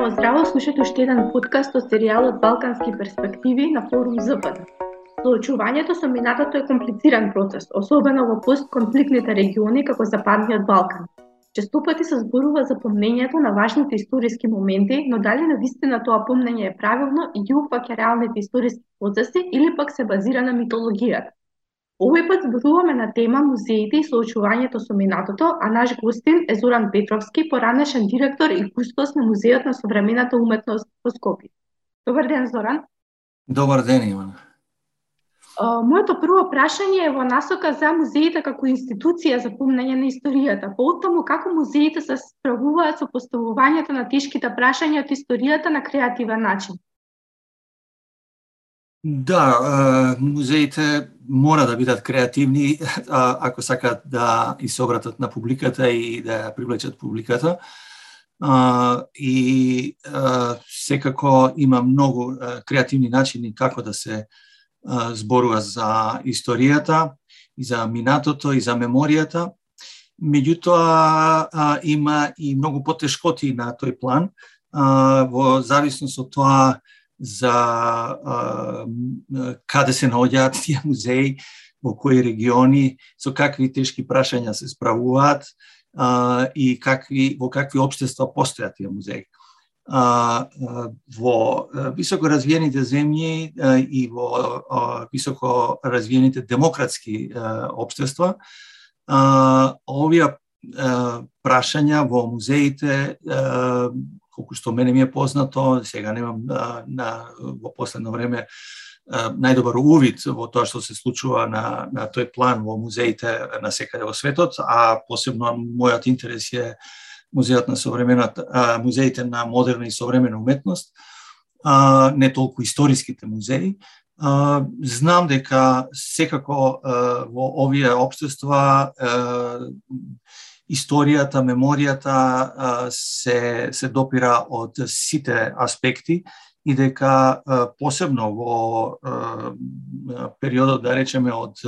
Здраво, здраво, слушате уште еден подкаст од серијалот Балкански перспективи на форум ЗПД. Соочувањето со минатото е комплициран процес, особено во постконфликтните региони како Западниот Балкан. Често пати се зборува за помнењето на важните историски моменти, но дали навистина тоа помнење е правилно и ги упфаќа реалните историски процеси или пак се базира на митологијата. Овој пат зборуваме на тема музеите и соочувањето со минатото, а наш гостин е Зоран Петровски, поранешен директор и кустос на Музеот на современата уметност во Скопје. Добар ден, Зоран. Добар ден, Ивана. Моето прво прашање е во насока за музеите како институција за помнење на историјата. Поотаму, како музеите се справуваат со поставувањето на тешките прашања од историјата на креативен начин? Да, музеите мора да бидат креативни ако сакаат да и се обратат на публиката и да ја привлечат публиката. И секако има многу креативни начини како да се зборува за историјата и за минатото и за меморијата. Меѓутоа има и многу потешкоти на тој план во зависност од тоа за каде се наоѓаат тие музеи, во кои региони, со какви тешки прашања се справуваат и во какви општества постојат тие музеи. Во високо развиените земји и во високо развиените демократски општества, овие прашања во музеите, колку што мене ми е познато, сега немам во последно време најдобар увид во тоа што се случува на тој план во музеите на секаде во светот, а посебно мојот интерес е музеите на модерна и современа уметност, не толку историските музеи. Знам дека секако во овие општества историјата, меморијата се допира од сите аспекти и дека посебно во периодот, да речеме, од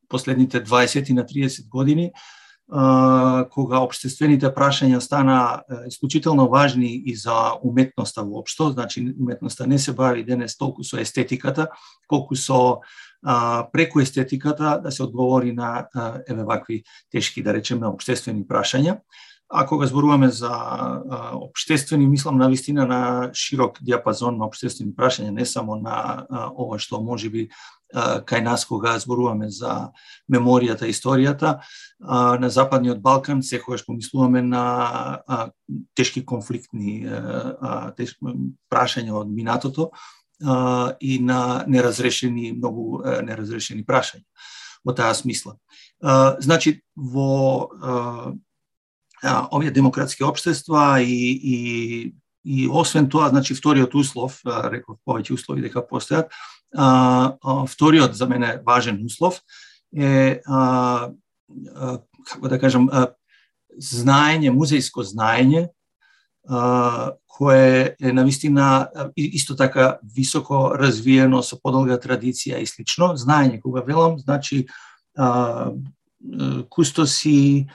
последните 20 на 30 години, кога општествените прашања стана исклучително важни и за уметноста воопшто, значи уметноста не се бави денес толку со естетиката, колку со преку естетиката да се одговори на вакви тешки, да речеме, општествени прашања. А кога зборуваме за општествени, мислам навистина на широк диапазон на општествени прашања, не само на ова што можеби кај нас кога зборуваме за меморијата и историјата. На Западниот Балкан секогаш помислуваме на тешки конфликтни прашања од минатото и на многу неразрешени прашања во таа смисла. Значи, во овие демократски општества и освен тоа, значи вториот услов, реков повеќе услови дека постојат, вториот за мене важен услов е како да кажам знаење, музејско знаење, кое е навистина исто така високо развиено со подолга традиција и слично. Знаење, кога велам, значи кустоси,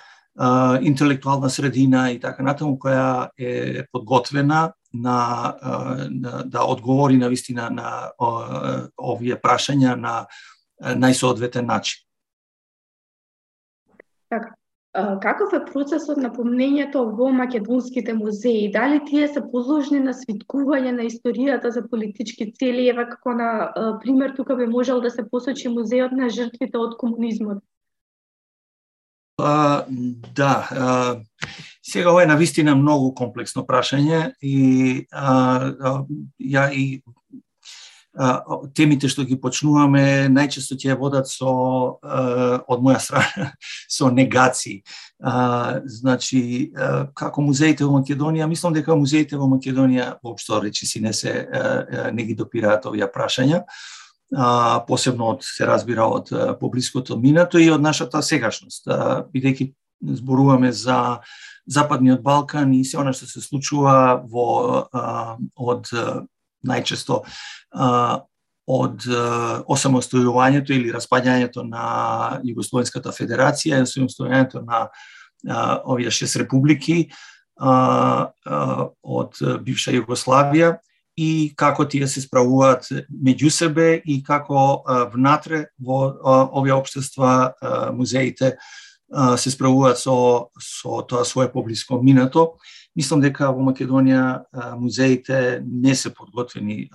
интелектуална средина и така натаму, која е подготвена да одговори навистина на овие прашања на најсоодветен начин. Така. Каков е процесот на помнењето во македонските музеи? Дали тие се подложни на свиткување на историјата за политички цели? Ева како на пример тука би можел да се посочи музеот на жртвите од комунизмот. Да, сега ова е навистина многу комплексно прашање и темите што ги почнуваме најчесто ќе водат од моја страна со негации. Значи, како музеите во Македонија, мислам дека музеите во Македонија воопшто речиси не ги допираат овие прашања, посебно се разбира од поблиското минато и од нашата сегашност, бидејќи зборуваме за Западниот Балкан и се она што се случува од најчесто од осамостојувањето или распаѓањето на Југословенската федерација, осамостојувањето на овие 6 републики, од бивша Југославија и како тие се справуваат меѓу себе и како внатре во овие општества музеите се справуваат со тоа свое поблиско минато. Мислам дека во Македонија музеите не се подготвени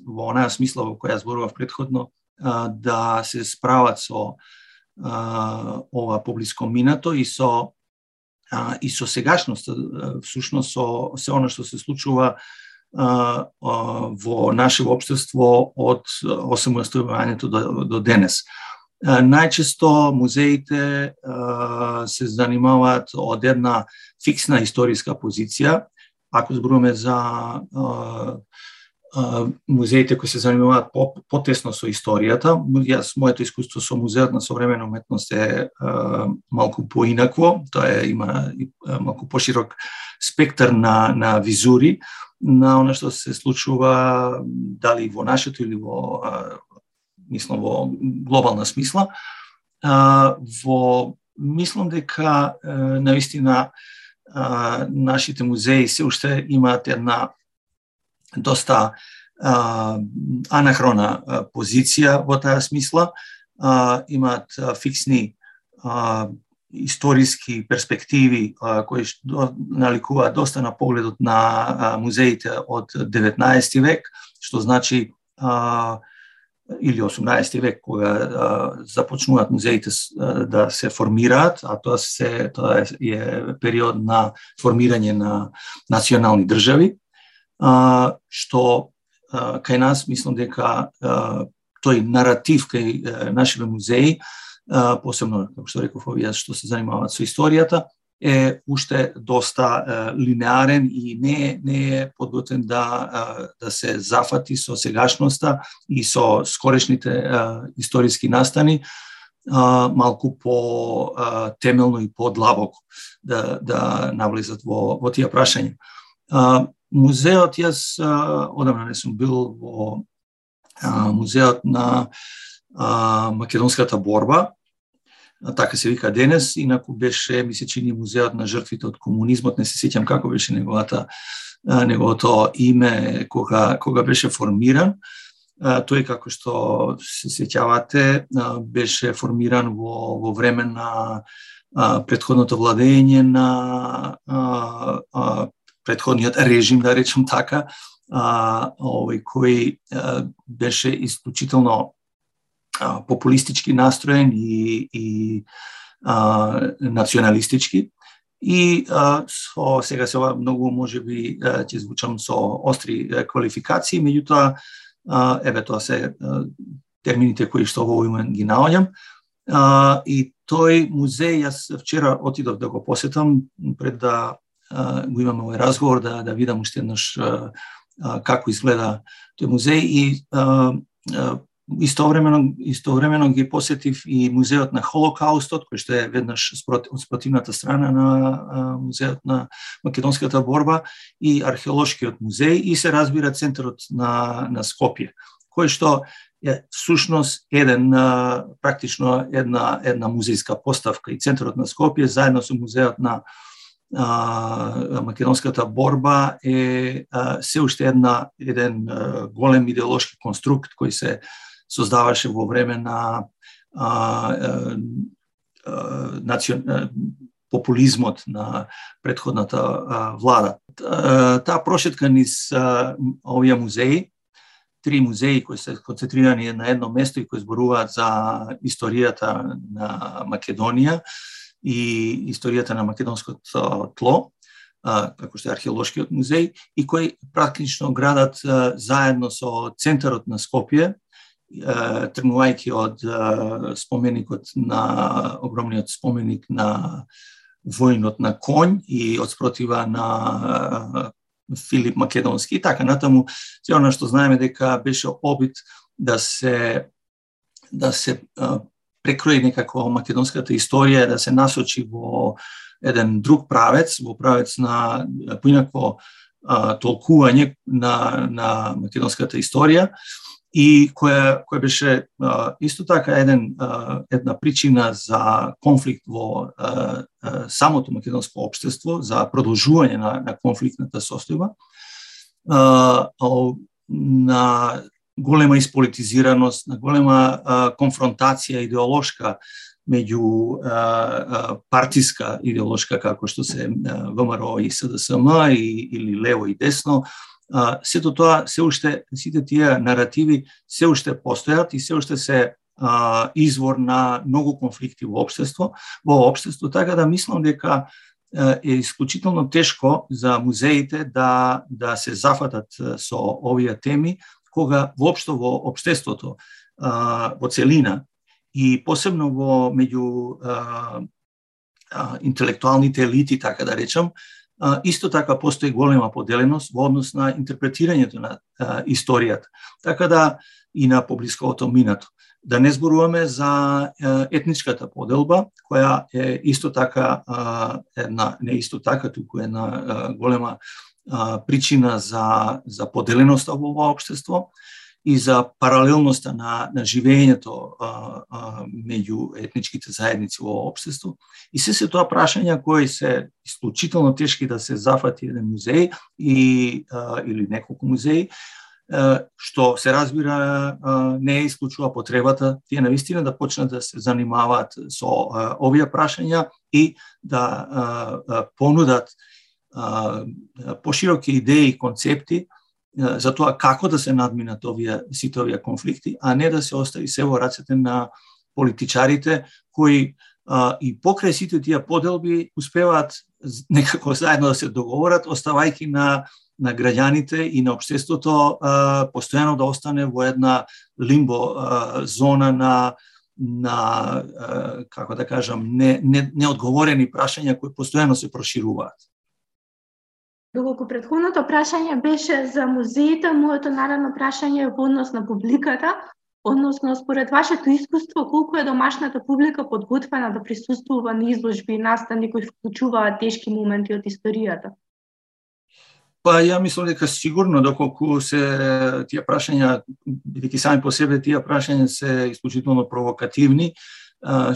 во онаа смисла во која зборував претходно да се справат со ова поблиско минато и со сегашноста, всушност со се она што се случува во нашето општество од осамостојувањето до денес. Најчесто музеите се занимаваат од една фиксна историска позиција. Ако зборуваме за музеите кои се занимаваат потесно со историјата, моето искуство со музеот на современа уметност е малку поинакво. Тоа има малку поширок спектар на визури на она што се случува дали во нашето или во глобална смисла. Мислам дека навистина нашите музеи се уште имаат една доста анахрона позиција во таа смисла. Имаат фиксни историски перспективи кои наликуваат доста на погледот на музеите од 19 век, што значи или 18 век, кога започнуваат музеите да се формираат, а тоа е период на формирање на национални држави, што кај нас мислам дека тој наратив кај нашите музеи, посебно, како што реков, овие што се занимаваат со историјата, е уште доста линеарен и не е подготвен да се зафати со сегашноста и со скорешните историски настани, малку по темелно и подлабоко да навлезат во тие прашања. Музеот, јас одамна не сум бил во музеот на македонската борба, така се вика денес, инаку беше, ми се чини, музеот на жртвите од комунизмот, не се сеќам како беше неговото име кога беше формиран. Тој, како што се сеќавате, беше формиран во време на претходното владење на претходниот режим, да речем така, кој беше исклучително популистички настроен и националистички. И сега се многу можеби ќе звучам со остри квалификации, меѓутоа тоа се термините кои што во момент ги наоѓам. И тој музеј, јас вчера отидов да го посетам пред да го имаме овој разговор, да видам уште еднаш како изгледа тој музеј и истовремено ги посетив и музеот на Холокаустот, кој што е веднаш од спротивната страна на музеот на македонската борба, и археолошкиот музеј, и се разбира центарот на Скопје, кој што е всушност практично една музејска поставка. И центарот на Скопје заедно со музеот на македонската борба е се уште еден голем идеолошки конструкт кој се создаваше во време на популизмот на претходната влада. Таа прошетка низ овие музеи, 3 музеи кои се концентрирани на едно место и кои зборуваат за историјата на Македонија и историјата на македонското тло, како што е археолошкиот музеј, и кои практично градат заедно со центарот на Скопје, тргнувајќи од споменикот на огромниот споменик на војнот на конј и од спротива на Филип Македонски и така натаму. Се она што знаеме дека беше обид да се прекрои некако македонската историја, да се насочи во еден друг правец, во правец на поинакво толкување на македонската историја. и која беше исто така една причина за конфликт во самото македонско општество, за продолжување на конфликтната состојба, на голема исполитизираност, на голема конфронтација идеолошка меѓу партиска идеолошка како што се ВМРО и СДСМ или лево и десно. Сето тоа, сите тие наративи се уште постојат и се уште се извор на многу конфликти во општество, така да мислам дека е исклучително тешко за музеите да се зафатат со овие теми, кога воопшто во општеството во целина и посебно меѓу интелектуалните елити, така да речам, исто така постои голема поделеност во однос на интерпретирањето на историјата, така да и на поблисковото минато. Да не зборуваме за етничката поделба, која е исто така не исто така, туку една голема причина за поделеноста во ова општество и за паралелноста на живеењето меѓу етничките заедници во општество. И се тоа прашања кои се исклучително тешки да се зафати еден музеј или неколку музеи, што се разбира не исклучува потребата тие навистина да почнат да се занимаваат со овие прашања и да понудат пошироки идеи и концепти за тоа како да се надминат сите овие конфликти, а не да се остави се во рацете на политичарите кои и покрај сите тие поделби успеваат некако заедно да се договорат, оставајќи на граѓаните и на општеството постојано да остане во една лимбо зона на како да кажам, неодговорени прашања кои постојано се прошируваат. Доколку претходното прашање беше за музеите, моето наредно прашање е во однос на публиката, односно според вашето искуство, колку е домашната публика подготвена да присуствува на изложби и настани кои вклучуваат тешки моменти од историјата? Па ја мислам дека сигурно, доколку се тие прашања, бидејќи сами по себе тие прашања се исклучително провокативни,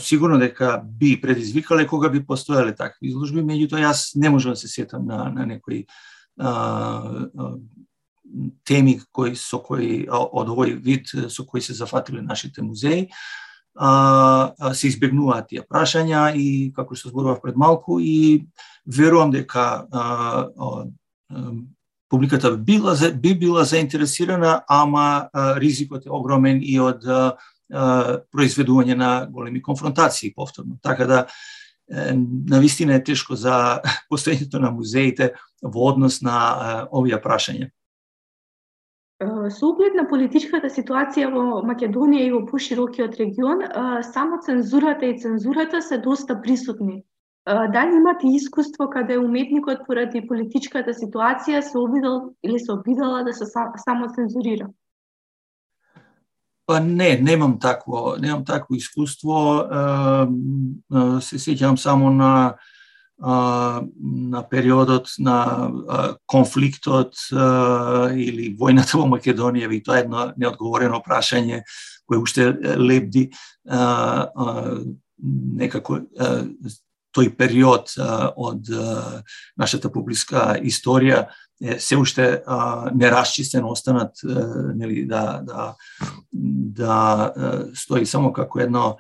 сигурно дека би предизвикале кога би постоеле такви изложби, меѓутоа јас не можам да се сетам на некои теми од овој вид со кои се зафатиле нашите музеи. Се избегнуваат тие прашања и како што зборував пред малку и верувам дека публиката би била заинтересирана, ама ризикот е огромен и од произведување на големи конфронтации повторно. Така да навистина е тешко за постоењето на музеите во однос на овие прашања. Со оглед на политичката ситуација во Македонија и во поширокиот регион, само цензурата и цензурата се доста присутни. Дали имате искуство каде уметникот поради политичката ситуација се обидел или се обидела да се само цензурира? Па немам такво искуство. Се сеќавам само на периодот на конфликтот или војната во Македонија, и тоа е едно неодговорено прашање кое уште лебди некако тој период од нашата публичка историја се уште нерасчистен, останат нели да стои само како едно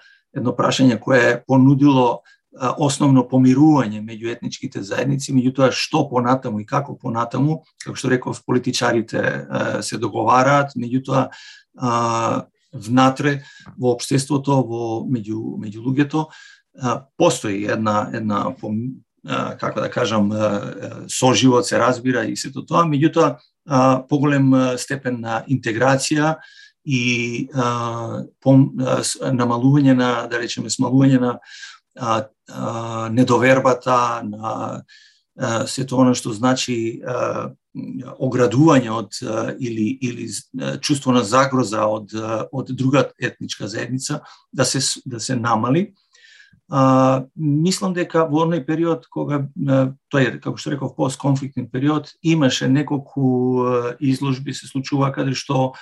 прашање кое е понудило основно помирување меѓу етничките заедници, меѓутоа што понатаму и како понатаму, како што реков, политичарите се договараат, меѓутоа внатре во општеството, меѓу луѓето постои една како да кажам соживот, се разбира и сето тоа, меѓутоа поголем степен на интеграција и намалување на, да речеме, смалување на недовербата, на сето оно што значи оградување од или чувство на загроза од друга етничка заедница да се намали. Мислам дека во оној период кога тој, како што реков, постконфликтен период, имаше неколку изложби се случува каде што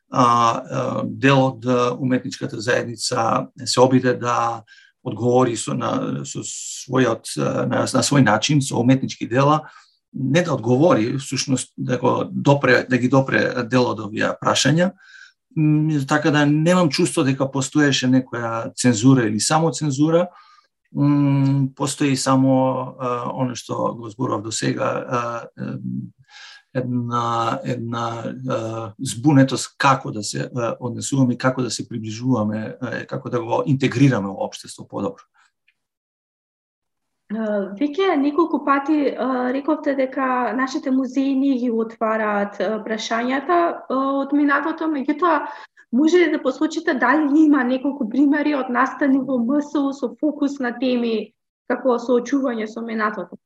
дел од уметничката заедница се обиде да одговори на свој начин, со уметнички дела, не да одговори, всушност да ги допре дел од овие прашања, така да немам чувство дека постоеше некоја цензура или само цензура, постои само оно што го зборував до сега, една збунетост како да се однесуваме, како да се приближуваме, како да го интегрираме во општество подобро. Веќе неколку пати рековте дека нашите музеи не ги отвараат прашањата од минатото, меѓутоа може ли да посочите дали има неколку примери од настани во МСУ со фокус на теми како соочување со минатото?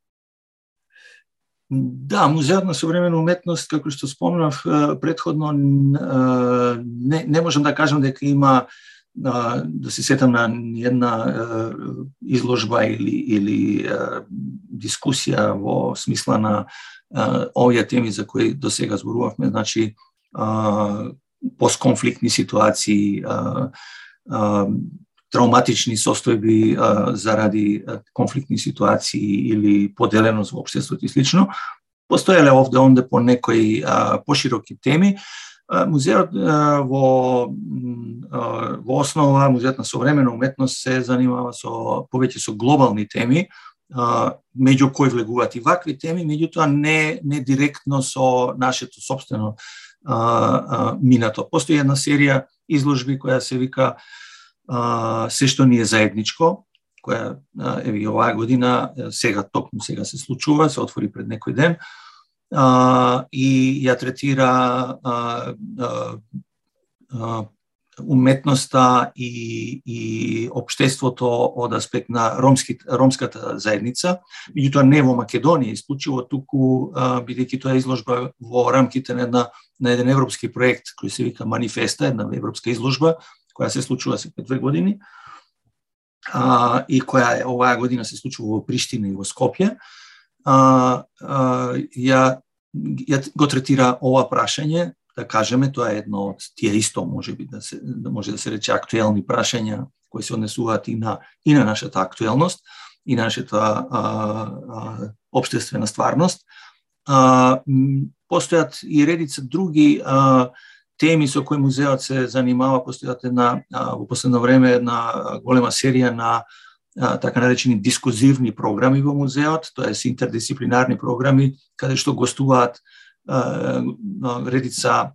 Да, Музеот на современа уметност, како што спомнав претходно, не можам да кажам дека има, да се сетам на една изложба или дискусија во смисла на овие теми за кои до сега зборувавме, значи постконфликтни ситуации, травматични состојби заради конфликтни ситуации или поделеност во општеството и слично. Постоеле овде-онде по некои пошироки теми. Музеот во основа, Музеот на современа уметност се занимава повеќе со глобални теми, меѓу кои влегуваат и вакви теми, меѓутоа не директно со нашето сопствено минато. Постои една серија изложби која се вика Се што ни е заедничко, која еве оваа година токму сега се случува, се отвори пред некој ден, и ја третира уметноста и општеството од аспект на ромската заедница, меѓутоа не во Македонија исклучиво, туку бидејќи тоа е изложба во рамките на еден европски проект кој се вика Манифеста, една европска изложба која се случува секој 2 години, и која оваа година се случува во Приштина и во Скопје, ја го третира ова прашање, да кажеме, тоа е едно од тие исто може да се рече актуелни прашања кои се однесуваат и на нашата актуелност, и нашата општествена стварност. Постојат и редица други теми со кои музеот се занимава. Постојат во последно време една голема серија на така наречени дискузивни програми во музеот, тоест интердисциплинарни програми, каде што гостуваат редица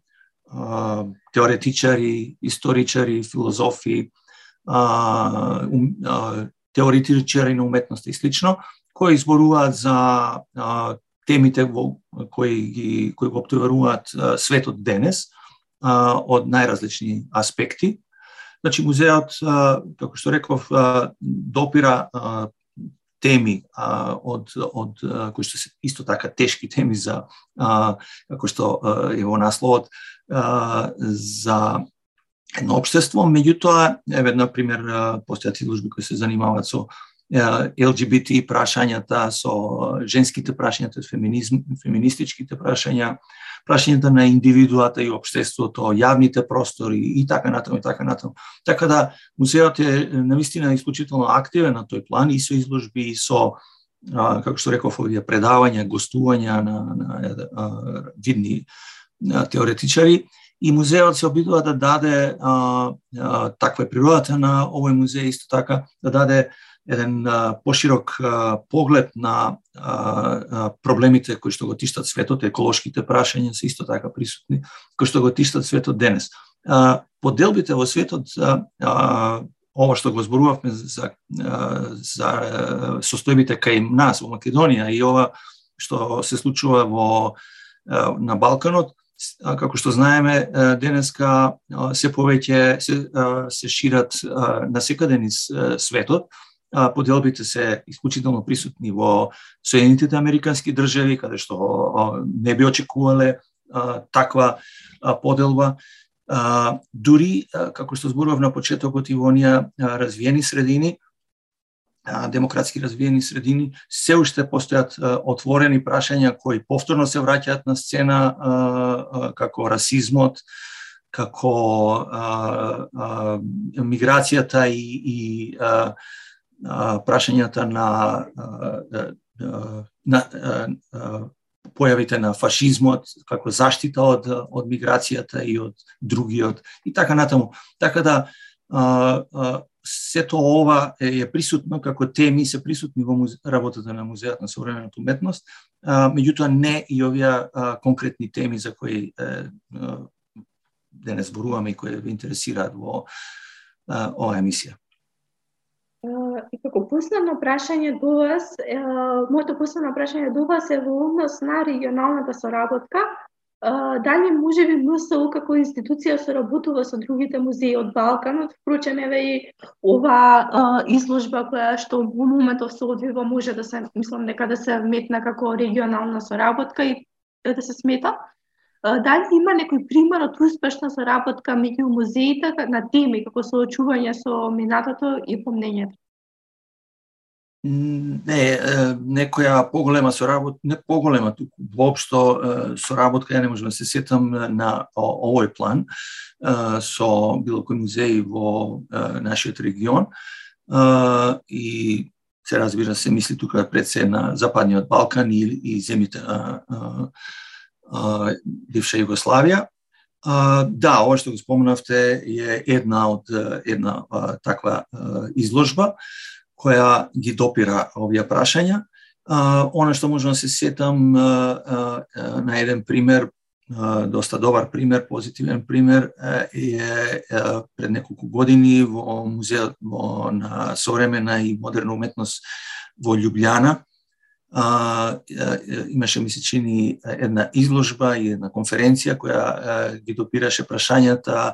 теоретичари, историчари, филозофи, теоретичари на уметноста и слично, кои изборуваат за темите кои го обтоваруваат светот денес од најразлични аспекти. Значи, музеот, како што реков, допира теми кои што се исто така тешки теми за, како што е во насловот, за едно општество, меѓутоа, еве, например, постојат изложби кои се занимаваат со ЛГБТ прашањата, со женските прашања, феминистичките прашања, прашањата на индивидуата и општеството, јавните простори и така натаму и така натаму. Така да музеот е навистина исклучително активен на тој план и со изложби и со, како што реков, овие предавања, гостувања на видни теоретичари, и музеот се обидува да даде, таква е природата на овој музеј, исто така да даде еден поширок поглед на проблемите кои што го тиштат светот, еколошките прашања се исто така присутни, кои што го тиштат светот денес. Поделбите во светот, ова што го зборувавме за состојбите кај нас во Македонија и ова што се случува на Балканот, како што знаеме, денеска се повеќе се шират насекаде низ светот. Поделбите се исклучително присутни во Соединетите Американски држави, каде што не би очекувале таква поделба. Дури, како што зборував на почетокот, и во оние развиени средини, демократски развиени средини, се уште постојат отворени прашања кои повторно се враќаат на сцена, како расизмот, како миграцијата и прашањата на појавите на фашизмот како заштита од миграцијата и од другиот и така натаму. Така да сето ова е присутно како теми, се присутни во работата на Музеот на современата уметност, меѓутоа не и овие конкретни теми за кои денес зборуваме и кои ве интересираат во оваа емисија. И како последно прашање до вас, моето последно прашање до вас е во однос на регионалната соработка. Дали можеби МСУ како институција соработува со другите музеи од Балканот? Впрочем, еве и ова изложба која што во моментов се одвива може да се, мислам дека да се метна како регионална соработка и да се смета. Дали има некој пример од успешна соработка меѓу музеите на теми како соочување со минатото и помнењето? Не, некоја поголема соработка, не поголема, туку воопшто соработка, ја не можам да се сетам на овој план со било кој музеј во нашиот регион и се разбира се мисли тука пред се на Западниот Балкан и земјите бивша Југославија. Да, ова што го спомнавте е една таква изложба која ги допира овие прашања. Она што можам да се сетам на еден пример, доста добар пример, позитивен пример, е пред неколку години во Музеот на современа и модерна уметност во Љубљана. Имаше, ми се чини, една изложба и една конференција која ги допираше прашањата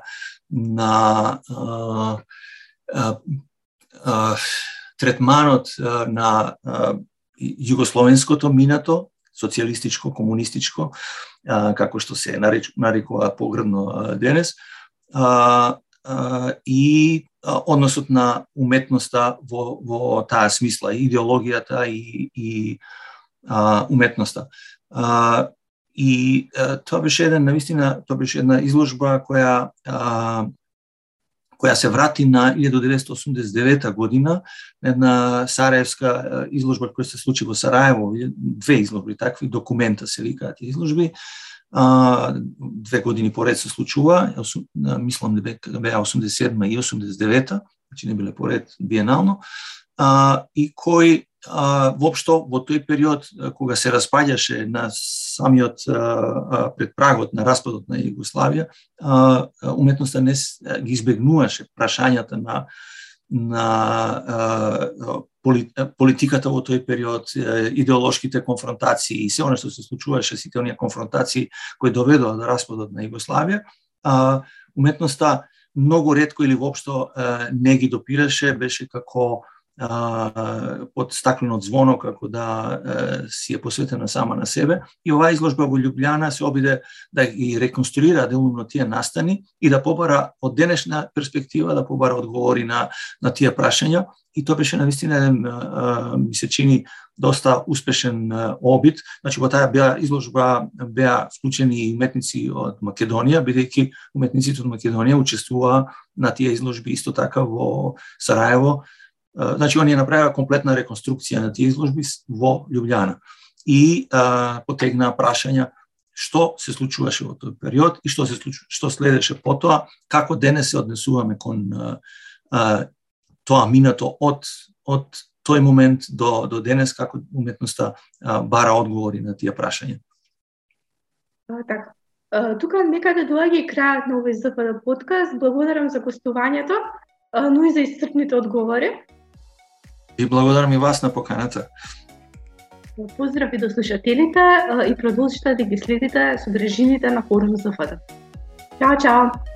на третманот на југословенското минато, социјалистичко, комунистичко, како што се нарекува погребно денес, и односот на уметноста во таа смисла, идеологијата и уметноста. И тоа беше една изложба која се врати на 1989 година, една сараевска изложба која се случи во Сараево, две изложби, такви документа се викаат изложби, 2 години поред се случува, мислам дека беа 87 и 89, значи не биле поред биенално, и кој воопшто во тој период кога се распаѓаше на самиот пред прагот на распадот на Југославија, уметноста не ги избегнуваше прашањата на политиката во тој период, идеолошките конфронтации и се она што се случуваше, сите оние конфронтации кои доведоа до распадот на Југославија, уметноста многу ретко или воопшто не ги допираше, беше како под стаклено звоно, како да си е посветена сама на себе. И оваа изложба во Љубљана се обиде да ги реконструира делумно тие настани и да побара од денешна перспектива, да побара одговори на тие прашања. И тоа беше навистина, ми се чини, доста успешен обид. Значи, во таа изложба беа вклучени и уметници од Македонија, бидејќи уметниците од Македонија учествуваа на тие изложби исто така во Сараево. Значи, оние направија комплетна реконструкција на тие изложби во Љубљана и потегнаа прашања што се случуваше во тој период и што следеше потоа, како денес се однесуваме кон тоа минато од тој момент до денес, како уметноста бара одговори на тие прашања. Така. Тука некаде доаѓа и крајот на овој ЗПД подкаст. Благодарам за гостувањето, но и за исцрпните одговори. И благодарам и вас на поканата. Поздрави до слушателите и продолжите да ги следите содржините на форум ЗФД. Чао, чао!